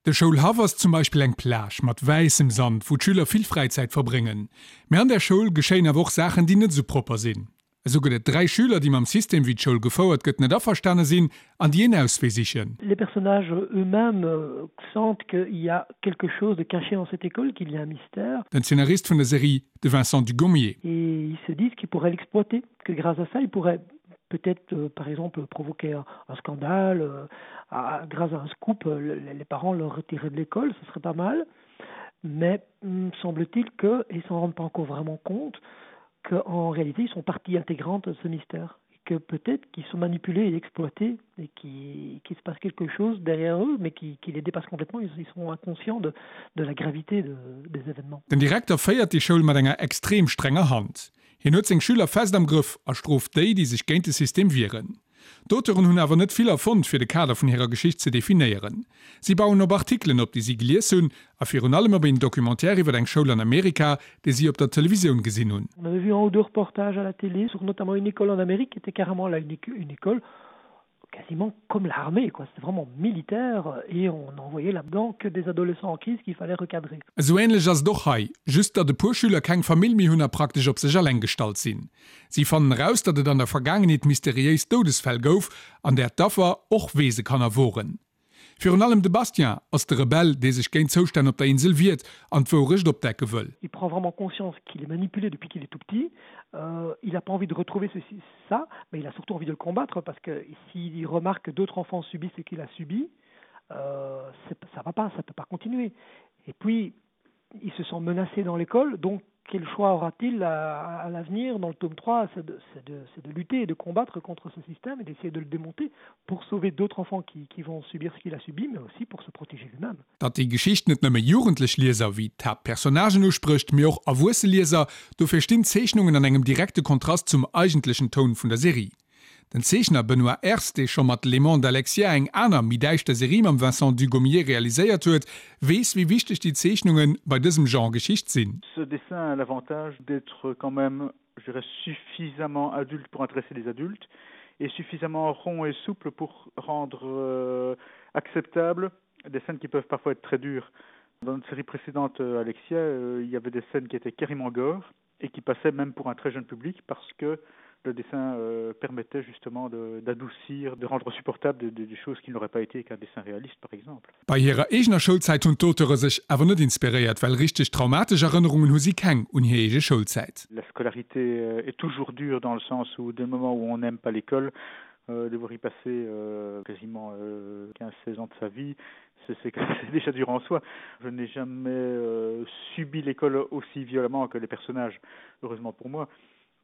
De Schoulhaff ass zum Beispill eng Plage mat wäissem Sand, wou d'Schüler vill Fräizäit verbréngen. Mee an där Schoul geschéien awer och Saachen, déi net esou propper sinn. Esou gëtt et 3 Schüler, déi mam System, wéi d'Schoul gefouert gëtt, net averstane sinn an déi een Auswee sichen. Les personnages eux-mêmes sentent qu'il y a quelque chose de caché dans cette école, qu'il y a un mystère. Den Zeenarist vun der Serie, de Vincent Dugommier. Et ils se disent qu'ils pourraient l'exploiter, que grâce à ça, ils pourraient peut-être euh, par exemple provoquer un, un scandale euh, à, grâce à un scoop euh, les, les parents leur retiraient de l'école ce serait pas mal mais hmm, semble-t-il que ils s'en rendent pas encore vraiment compte qu'en réalité ils sont partie intégrante de ce mystère que peut-être qu'ils sont manipulés et exploités et qu'il qui se passe quelque chose derrière eux mais qui, qui les dépasse complètement ils, ils sont inconscients de, de la gravité de, des événements. Den Direkter féiert déi Schoul mat enger extrem strenger Hand. Hien huet seng Schüler fest am Grëff a strooft déi, déi sech géint de System wieren. D'Auteuren hunn awer net vill erfonnt, fir de Kader vun hirer Geschicht ze definéieren. Si bauen op Artikelen op, déi si gelies hunn, a virun allem op een Documentaire iwwer eng Schoul an Amerika, dee si op der Televisioun gesinn hunn. On avait vu un ou deux reportages à la télé sur notamment une école en Amérique qui était carrément là une une école quasiment comme l'armée quoi, c'était vraiment militaire et on envoyait là-dedans que des adolescents en crise qu'il fallait recadrer. Esou änlech ass et och hei, just datt e puer Schüler keng Famill méi hunn a praktesch op sech alleng gestallt sinn. Si fannen eraus, datt et an der Vergaangenheet mysteriéis Doudesfäll gouf, an där d'Affer och Weesekanner woren. Virun allem de Bastien ass de Rebell, dee sech géint d'Zoustänn op der Insel wiert an d'Wourecht opdecke wëll. Il prend vraiment conscience qu'il est manipulé depuis qu'il est tout petit. Euh, il a pas envie de retrouver ceci, ça, mais il a surtout envie de le combattre parce que s'il remarque que d'autres enfants subissent ce qu'il a subi, euh, ça va pas, ça peut pas continuer. Et puis, il se sent menacé dans l'école, donc quel choix aura-t-il à, à l'avenir dans le tome 3 c'est de, de, de lutter et de combattre contre ce système et d'essayer de le démonter pour sauver d'autres enfants qui, qui vont subir ce qu'il a subi, mais aussi pour se protéger lui-même. Datt déi Geschicht net nëmme jugendlech Lieser wéi d'Haaptpersonnagen usprécht, mee och erwuesse Lieser, dofir stinn d'Zeechnungen an engem direkte Kontrast zum eigentlechen Toun vun der Serie. Den Zeechner Benoît Ers, dee scho mat L'aimant d'Alexia eng aner, méi däischter Serie mam Vincent Dugommier realiséiert huet, weess wéi wichteg déi Zeechnunge bei dësem Genre Geschicht sinn. Ce dessin a l'avantage d'être quand même, je dirais, suffisamment adulte pour intéresser les adultes et suffisamment rond et souple pour rendre euh, acceptable des scènes qui peuvent parfois être très dures. Dans une série précédente euh, Alexia, euh, il y avait des scènes qui étaient carrément gore et qui passaient même pour un très jeune public parce que le dessin euh, permettait justement d'adoucir, de, de rendre supportable des de, de choses qui n'auraient pas été qu'un dessin réaliste par exemple. Bei hirer eegener Schoulzäit hunn d'Auteure sech awer net inspiréiert, well richteg traumatesch Erënnerungen hu si keng un hir eege Schoulzäit. La scolarité euh, est toujours dure dans le sens où dès le moment où on n'aime pas l'école, euh, devoir y passer euh, quasiment euh, 15 16 ans de sa vie, c'est déjà dur en soi. Je n'ai jamais euh, subi l'école aussi violemment que les personnages, heureusement pour moi.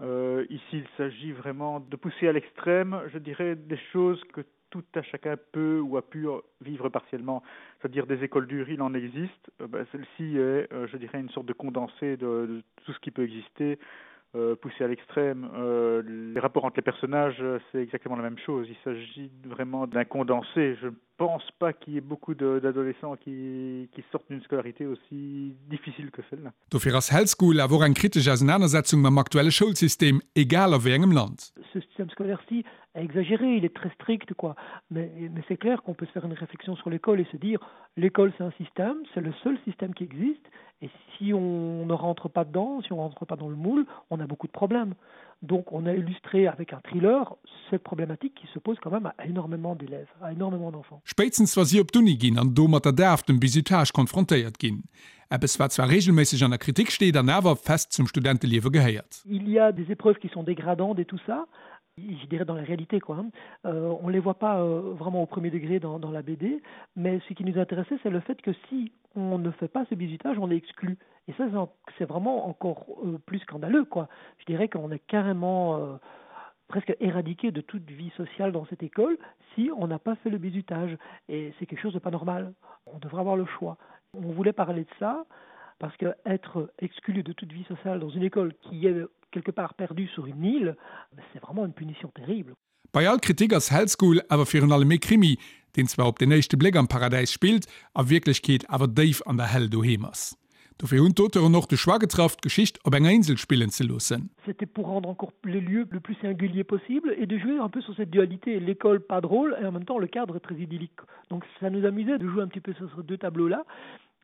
Euh, ici, il s'agit vraiment de pousser à l'extrême, je dirais, des choses que tout à chacun peut ou a pu vivre partiellement. C'est-à-dire des écoles dures, il en existe. Euh, Celle-ci est, euh, je dirais, une sorte de condensé de, de tout ce qui peut exister. Euh, poussé à l'extrême euh, les rapports entre les personnages c'est exactement la même chose il s'agit vraiment d'un condensé je ne pense pas qu'il y ait beaucoup d'adolescents qui, qui sortent d'une scolarité aussi difficile que celle-là. Dofir ass Hell School awer och eng kritesch Ausenanersetzung mam aktuelle Schoulsystem, egal a wéi engem Land. Ce système scolaire-ci est exagéré, il est très strict quoi. Mais, mais c'est clair qu'on peut se faire une réflexion sur l'école et se dire l'école c'est un système, c'est le seul système qui existe et si on ne rentre pas dedans, si on rentre pas dans le moule, on a beaucoup de problèmes. Donc on a illustré avec un thriller cette problématique qui se pose quand même à énormément d'élèves, à énormément d'enfants. Spéitstens wa si op d'Uni ginn an do mat der Daf, dem Bizutage, konfrontéiert ginn. Eppes wat zwar reegelméisseg an der Kritik steet an awer fest zum Studenteliewe gehéiert. Il y a des épreuves qui sont dégradantes et tout ça, je dirais dans la réalité quoi. Euh, on les voit pas euh, vraiment au premier degré dans, dans la BD, mais ce qui nous intéressait c'est le fait que si on ne fait pas ce bizutage, on est exclu. Et ça c'est vraiment encore euh, plus scandaleux quoi. Je dirais qu'on est carrément euh, presque éradiqué de toute vie sociale dans cette école si on n'a pas fait le bizutage et c'est quelque chose de pas normal. On devrait avoir le choix. On voulait parler de ça parce que être exclu de toute vie sociale dans une école qui est quelque part perdue sur une île, c'est vraiment une punition terrible. Bei all Kritik ass Hell School awer virun allem ee Krimi, deen zwar op den éischte Bléck am Paradäis spillt, a Wierklechkeet awer déif an der Hell doheem ass. Dofir hunn d'Auteuren och de Choix getraff, d'Geschicht op enger Insel spillen ze loossen. C'était pour rendre encore les lieux le plus singulier possible et de jouer un peu sur cette dualité, l'école pas drôle et en même temps le cadre très idyllique. Donc ça nous amusait de jouer un petit peu sur ces deux tableaux là.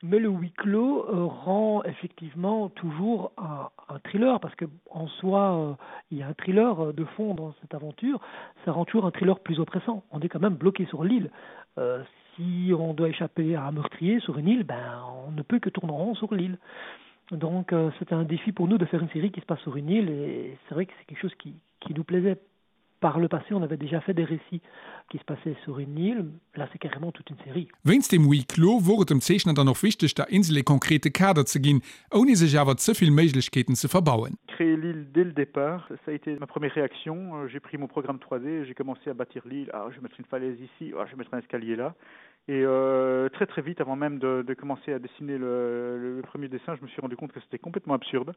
Mais le huis clos euh, rend effectivement toujours un, un thriller parce que en soi euh, il y a un thriller euh, de fond dans cette aventure, ça rend toujours un thriller plus oppressant. On est quand même bloqué sur l'île. Euh, si on doit échapper à un meurtrier sur une île, ben on ne peut que tourner en rond sur l'île. Donc euh, c'était un défi pour nous de faire une série qui se passe sur une île et c'est vrai que c'est quelque chose qui, qui nous plaisait par le passé on avait déjà fait des récits qui se passaient sur une île là c'est carrément toute une série. Wéinst dem Huis clos wor et dem Zeechner dann och wichteg der Insel ee konkrete Kader ze ginn, ouni sech awer ze vill Méiglechkeeten ze verbauen. Créer l'île dès le départ, ça a été ma première réaction. J'ai pris mon programme 3D et j'ai commencé à bâtir l'île. Ah, je vais mettre une falaise ici, ah, je vais mettre un escalier là. Et euh, très très vite, avant même de, de commencer à dessiner le, le, le premier dessin, je me suis rendu compte que c'était complètement absurde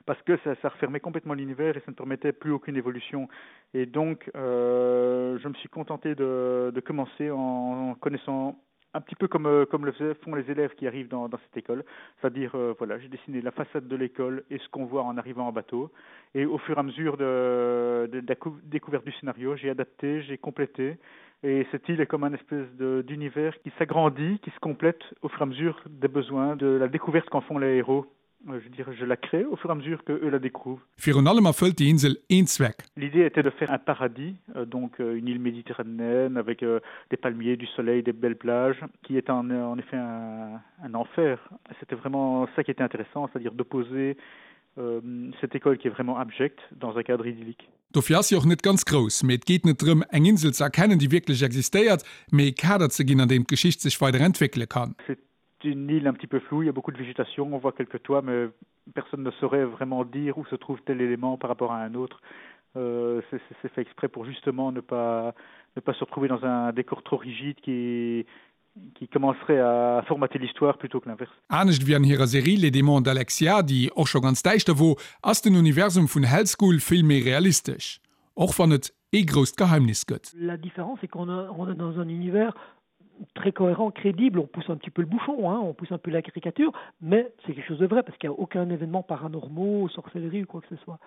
parce que ça, ça refermait complètement l'univers et ça ne permettait plus aucune évolution. Et donc euh, je me suis contenté de, de commencer en, en connaissant un petit peu comme, euh, comme le font les élèves qui arrivent dans, dans cette école, c'est-à-dire euh, voilà, j'ai dessiné la façade de l'école et ce qu'on voit en arrivant en bateau. Et au fur et à mesure de, de, de la découverte du scénario, j'ai adapté, j'ai complété. Et cette île est comme un espèce d'univers qui s'agrandit, qui se complète au fur et à mesure des besoins, de la découverte qu'en font les héros. Euh, je dirais, je la crée au fur et à mesure que eux la découvrent. Virun allem erfëllt déi Insel een Zweck. L'idée était de faire un paradis, euh, donc euh, une île méditerranéenne avec euh, des palmiers, du soleil, des belles plages, qui est en, en effet un, un enfer. C'était vraiment ça qui était intéressant, c'est-à-dire d'opposer euh, cette école qui est vraiment abjecte dans un cadre idyllique. Dofir ass si och net ganz grouss. Mee et geet net drëm, eng Insel ze erkennen, déi wierklech existéiert, mee e Kader ze ginn, an deem d'Geschicht sech weider entwéckele kann. C'est une île un petit peu floue, il y a beaucoup de végétation, on voit quelques toits, mais personne ne saurait vraiment dire où se trouve tel élément par rapport à un autre. Euh, c'est fait exprès pour justement ne pas, ne pas se retrouver dans un décor trop rigide qui, qui commencerait à formater l'histoire plutôt que l'inverse. Anescht wéi an hirer Serie Les Démons d'Alexia, déi och scho ganz däischter wor, ass den Universum vun Hell School vill méi realistesch, och wann et ee grousst Geheimnis gëtt. La différence c'est qu'on est dans un univers très cohérent, crédible, on pousse un petit peu le bouchon, hein, on pousse un peu la caricature, mais c'est quelque chose de vrai parce qu'il n'y a aucun événement paranormaux, sorcellerie ou quoi que ce soit.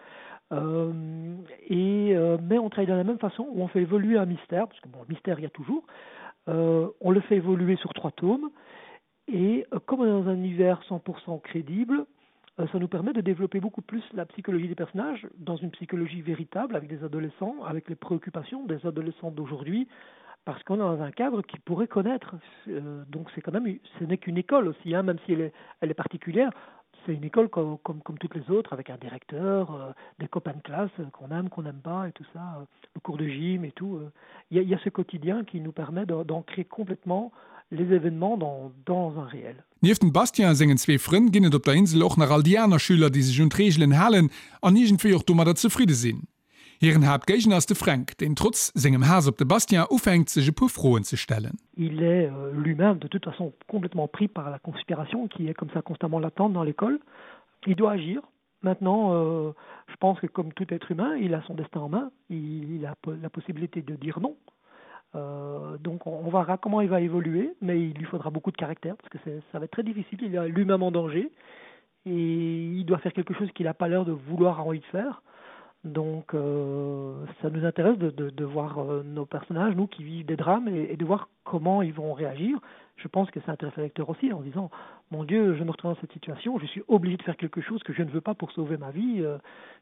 Euh, et, euh, mais on travaille de la même façon où on fait évoluer un mystère, parce que bon, le mystère il y a toujours, euh, on le fait évoluer sur trois tomes, et euh, comme on est dans un univers 100% crédible, euh, ça nous permet de développer beaucoup plus la psychologie des personnages dans une psychologie véritable avec des adolescents, avec les préoccupations des adolescents d'aujourd'hui, parce qu'on est dans un cadre qu'ils pourraient connaître. Euh, donc c'est quand même ce n'est qu'une école aussi, hein, même si elle est, elle est particulière, c'est une école comme, comme, comme toutes les autres, avec un directeur, euh, des copains de classe euh, qu'on aime, qu'on n'aime pas et tout ça, euh, le cours de gym et tout. Euh. Il euh. y, y a ce quotidien qui nous permet d'ancrer complètement les événements dans, dans un réel. Nieft dem Bastien a sengen zwee Frënn ginn et op der Insel och nach all déi aner Schüler, déi sech un d'Reegelen halen an iergendwéi och domadder zefridde sinn. Hiren Haaptgéigner ass de Fränk, deen trotz sengem Haass op de Bastien ufänkt, sech e puer Froen ze stellen. Il est euh, lui-même de toute façon complètement pris par la conspiration qui est comme ça constamment latente dans l'école. Il doit agir. Maintenant, euh, je pense que comme tout être humain, il a son destin en main, il, il a la possibilité de dire non. Euh, donc on, on verra comment il va évoluer, mais il lui faudra beaucoup de caractère parce que ça va être très difficile. Il est lui-même en danger et il doit faire quelque chose qu'il n'a pas l'air de vouloir envie de faire. Donc euh, ça nous intéresse de, de, de voir euh, nos personnages, nous qui vivent des drames et, et de voir comment ils vont réagir. Je pense que ça intéresse le lecteur aussi en disant mon Dieu, je me retrouve dans cette situation, je suis obligé de faire quelque chose que je ne veux pas pour sauver ma vie, euh,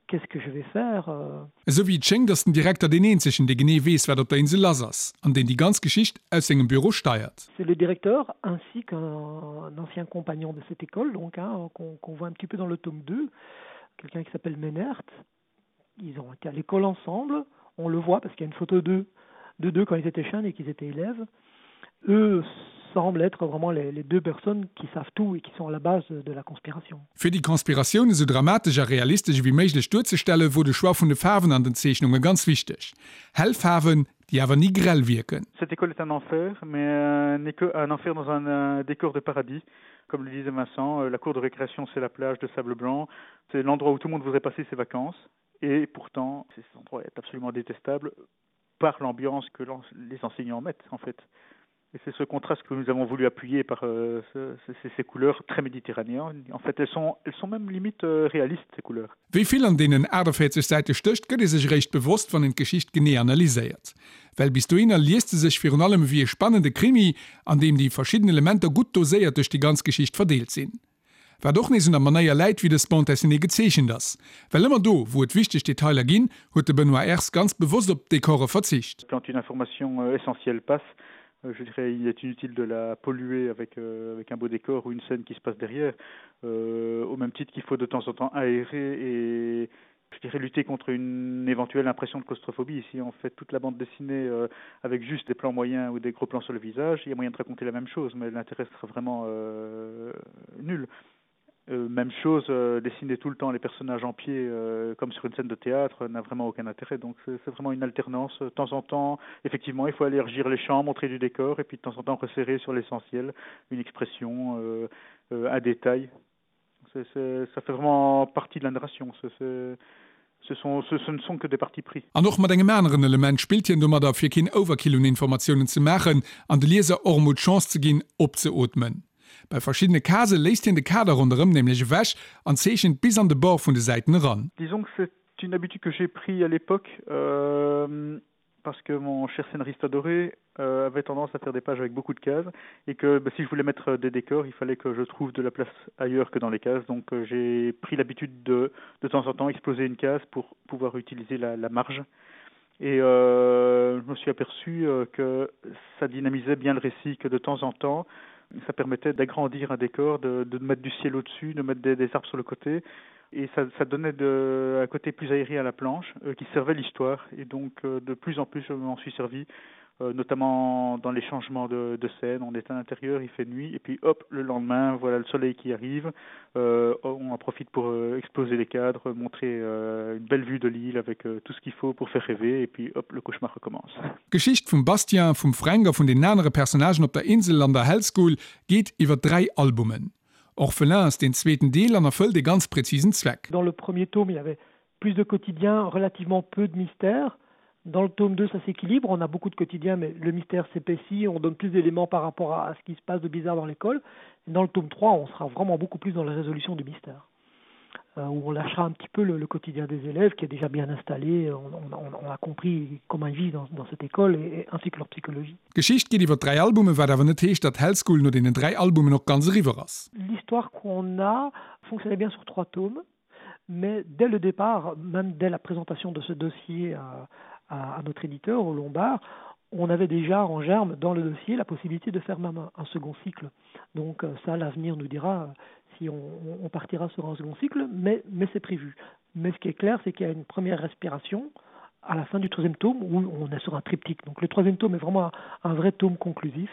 qu'est-ce que je vais faire euh? Esou wéi et schéngt, ass den Direkter deen eenzegen, dee genee weess, wat op der Insel lass ass, an deen déi ganz Geschicht aus sengem Büro steiert. C'est le directeur ainsi qu'un ancien compagnon de cette école, donc hein, qu'on qu'on voit un petit peu dans le tome 2, quelqu'un qui s'appelle Menert. Ils ont été à l'école ensemble, on le voit parce qu'il y a une photo d'eux de deux quand ils étaient jeunes et qu'ils étaient élèves. Eux semblent être vraiment les, les deux personnes qui savent tout et qui sont à la base de la conspiration. Fir déi Konspiratioun esou dramatesch a realistesch ewéi méiglech duerzestellen, wor de Choix vun de Faarwen an den Zeechnunge ganz wichteg. Hell Faarwen, déi awer ni grell wierken. Cette école est un enfer, mais un, un enfer dans un, un décor de paradis. Comme le disait Vincent, euh, la cour de récréation, c'est la plage de sable blanc. C'est l'endroit où tout le monde voudrait passer ses vacances. Et pourtant, cet endroit est absolument détestable par l'ambiance que les enseignants mettent en fait. Et c'est ce contraste que nous avons voulu appuyer par euh, ce, ce, ces couleurs très méditerranéennes. En fait, elles sont, elles sont même limite euh, réalistes, ces couleurs. Wéi vill an deenen 48 Säite stécht, gëtt ee sech eréischt bewosst, wann een d'Geschicht genee analyséiert. Well bis dohinner liest se sech virun allem ewéi e spannende Krimi, an deem déi verschidden Elementer gutt doséiert duerch déi ganz Geschicht verdeelt sinn. Wat och nees un der Manéier läit, wéi dës Bande dessinée gezeechent ass. Well ëmmer do, wou et wichteg Detailer ginn, huet de Benoît Ers ganz bewosst op d'Dekore verzicht. Quand une information essentielle passe, je dirais il est inutile de la polluer avec, euh, avec un beau décor ou une scène qui se passe derrière, euh, au même titre qu'il faut de temps en temps aérer et je dirais lutter contre une éventuelle impression de claustrophobie. Si on fait toute la bande dessinée euh, avec juste des plans moyens ou des gros plans sur le visage, il y a moyen de raconter la même chose, mais l'intérêt sera vraiment euh, nul. Euh, même chose, euh, dessiner tout le temps les personnages en pied euh, comme sur une scène de théâtre n'a vraiment aucun intérêt. Donc c'est vraiment une alternance. De temps en temps, effectivement, il faut aller régir les champs, montrer du décor et puis de temps en temps resserrer sur l'essentiel une expression, euh, euh, un détail. C'est, c'est, ça fait vraiment partie de la narration. C'est, c'est, ce sont, ce, ce ne sont que des partis pris. An och mat engem aneren Element spillt hien domadder, fir keen Overkill un Informatiounen ze maachen an de Lieser och emol d'Chance ze ginn, opzeootmen. Bei verschiddene Casë léisst hien de Kader ronderëm nämlech ewech an zeechent bis an de Bord vun de Säiten eran. Disons que c'est une habitude que j'ai pris à l'époque euh, parce que mon cher scénariste adoré euh, avait tendance à faire des pages avec beaucoup de cases et que bah, si je voulais mettre des décors, il fallait que je trouve de la place ailleurs que dans les cases. Donc euh, j'ai pris l'habitude de de temps en temps exploser une case pour pouvoir utiliser la, la marge. Et euh, je me suis aperçu euh, que ça dynamisait bien le récit, que de temps en temps, ça permettait d'agrandir un décor, de, de mettre du ciel au-dessus, de mettre des, des arbres sur le côté et ça, ça donnait de, un côté plus aéré à la planche euh, qui servait l'histoire et donc euh, de plus en plus je m'en suis servi euh, notamment dans les changements de, de scène on est à l'intérieur il fait nuit et puis hop le lendemain voilà le soleil qui arrive euh, on en profite pour euh, exploser les cadres montrer euh, une belle vue de l'île avec euh, tout ce qu'il faut pour faire rêver et puis hop le cauchemar recommence Geschicht vum Bastien, vum Fränk a vun den anere Personnagen op der Insel an der Hell School geet iwwer 3 Albumen. Orphelin ass deen zweeten Deel an erfëllt ee ganz präzisen Zweck. Dans le premier tome, il y avait plus de quotidien, relativement peu de mystères. Dans le tome 2, ça s'équilibre, on a beaucoup de quotidien, mais le mystère s'épaissit, on donne plus d'éléments par rapport à ce qui se passe de bizarre dans l'école. Dans le tome 3, on sera vraiment beaucoup plus dans la résolution du mystère. Euh, où on lâchera un petit peu le, le quotidien des élèves qui est déjà bien installé, on, on, on a compris comment ils vivent dans, dans cette école et, et ainsi que leur psychologie. D'Geschicht geet iwwer 3 Albumen, wat awer net heescht, datt Hell School no deenen 3 Albumen och ganz eriwwer ass. L'histoire qu'on a fonctionnait bien sur trois tomes, mais dès le départ, même dès la présentation de ce dossier à, à, à notre éditeur au Lombard, on avait déjà en germe dans le dossier la possibilité de faire même un, un second cycle. Donc euh, ça l'avenir nous dira euh, si on, on partira sur un second cycle, mais, mais c'est prévu. Mais ce qui est clair, c'est qu'il y a une première respiration à la fin du troisième tome où on est sur un triptyque. Donc le troisième tome est vraiment un, un vrai tome conclusif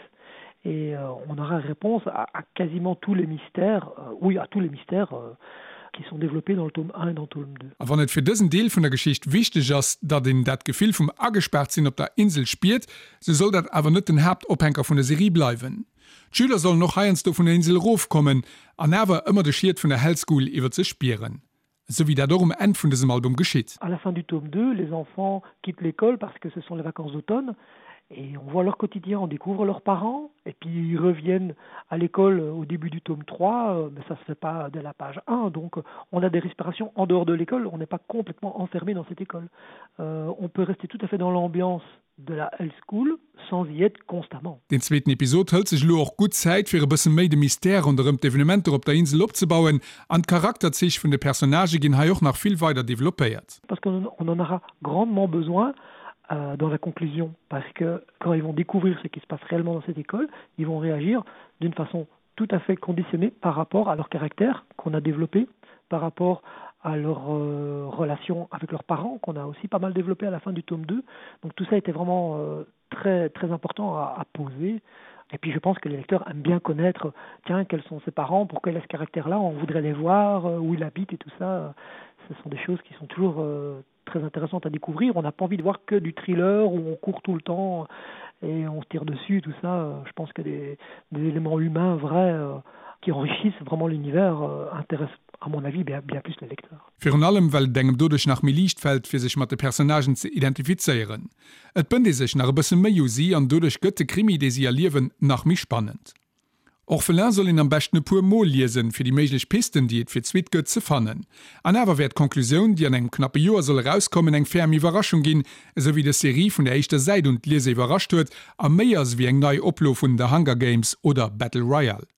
et euh, on aura réponse à, à quasiment tous les mystères euh, oui à tous les mystères euh, qui sont développés dans le tome 1 et dans le tome 2. A wann et fir dësen Deel vun der Geschicht wichteg ass, datt een dat Gefill vum Agespaart-sinn op der Insel spiert, sou soll dat awer net den Haaptophänker vun der Serie bleiwen. D'Schüler sollen och heiansdo vun der Insel erofkommen an awer ëmmer de Schiet vun der Hell School iwwer sech spieren. Esou wéi dat och um Enn vun dësem Album geschitt. À la fin du tome 2, les enfants quittent l'école parce que ce sont les vacances d'automne et on voit leur quotidien, on découvre leurs parents et puis ils reviennent à l'école au début du tome 3, euh, mais ça se fait pas dès la page 1 donc on a des respirations en dehors de l'école, on n'est pas complètement enfermé dans cette école. Euh, on peut rester tout à fait dans l'ambiance de la Hell School sans y être constamment. Deen zweeten Episod hëlt sech elo och gutt Zäit fir e bësse méi de Mystère ronderëm d'Evenementer op der Insel opzebauen an d'Charakterzich vun de Personnagë ginn hei och nach vill weider developpéiert. Parce qu'on en aura grandement besoin euh, dans la conclusion parce que quand ils vont découvrir ce qui se passe réellement dans cette école, ils vont réagir d'une façon tout à fait conditionnée par rapport à leur caractère qu'on a développé, par rapport à leur euh, relation avec leurs parents qu'on a aussi pas mal développé à la fin du tome 2. Donc tout ça était vraiment euh, très très important à, à poser. Et puis je pense que les lecteurs aiment bien connaître tiens quels sont ses parents, pourquoi il a ce caractère là, on voudrait les voir, euh, où il habite et tout ça. Ce sont des choses qui sont toujours euh, très intéressantes à découvrir. On n'a pas envie de voir que du thriller où on court tout le temps. et on se tire dessus tout ça euh, je pense que des, des éléments humains vrais euh, qui enrichissent vraiment l'univers euh, intéressent à mon avis bien, bien plus les lecteurs. Virun allem well et engem doduerch nach méi liicht fält fir sech mat de Personnagen ze identifizéieren. Et bënnt ee sech nach e bësse méi u si an doduerch gëtt de Krimi dee si erliewen nach méi spannend. Orphelin soll een am beschten e puer mol liesen, fir déi méiglech Pisten, déi et fir d'Suite gëtt, ze fannen. An awer wäert d'Conclusioun, déi an engem knappe Joer soll erauskommen, eng ferm Iwwerraschung ginn, esou wéi dës Serie vun der éischter Säit un d'Lieser iwwerrascht huet a méi ass ewéi eng nei Oplo vun The Hunger Games oder Battle Royale.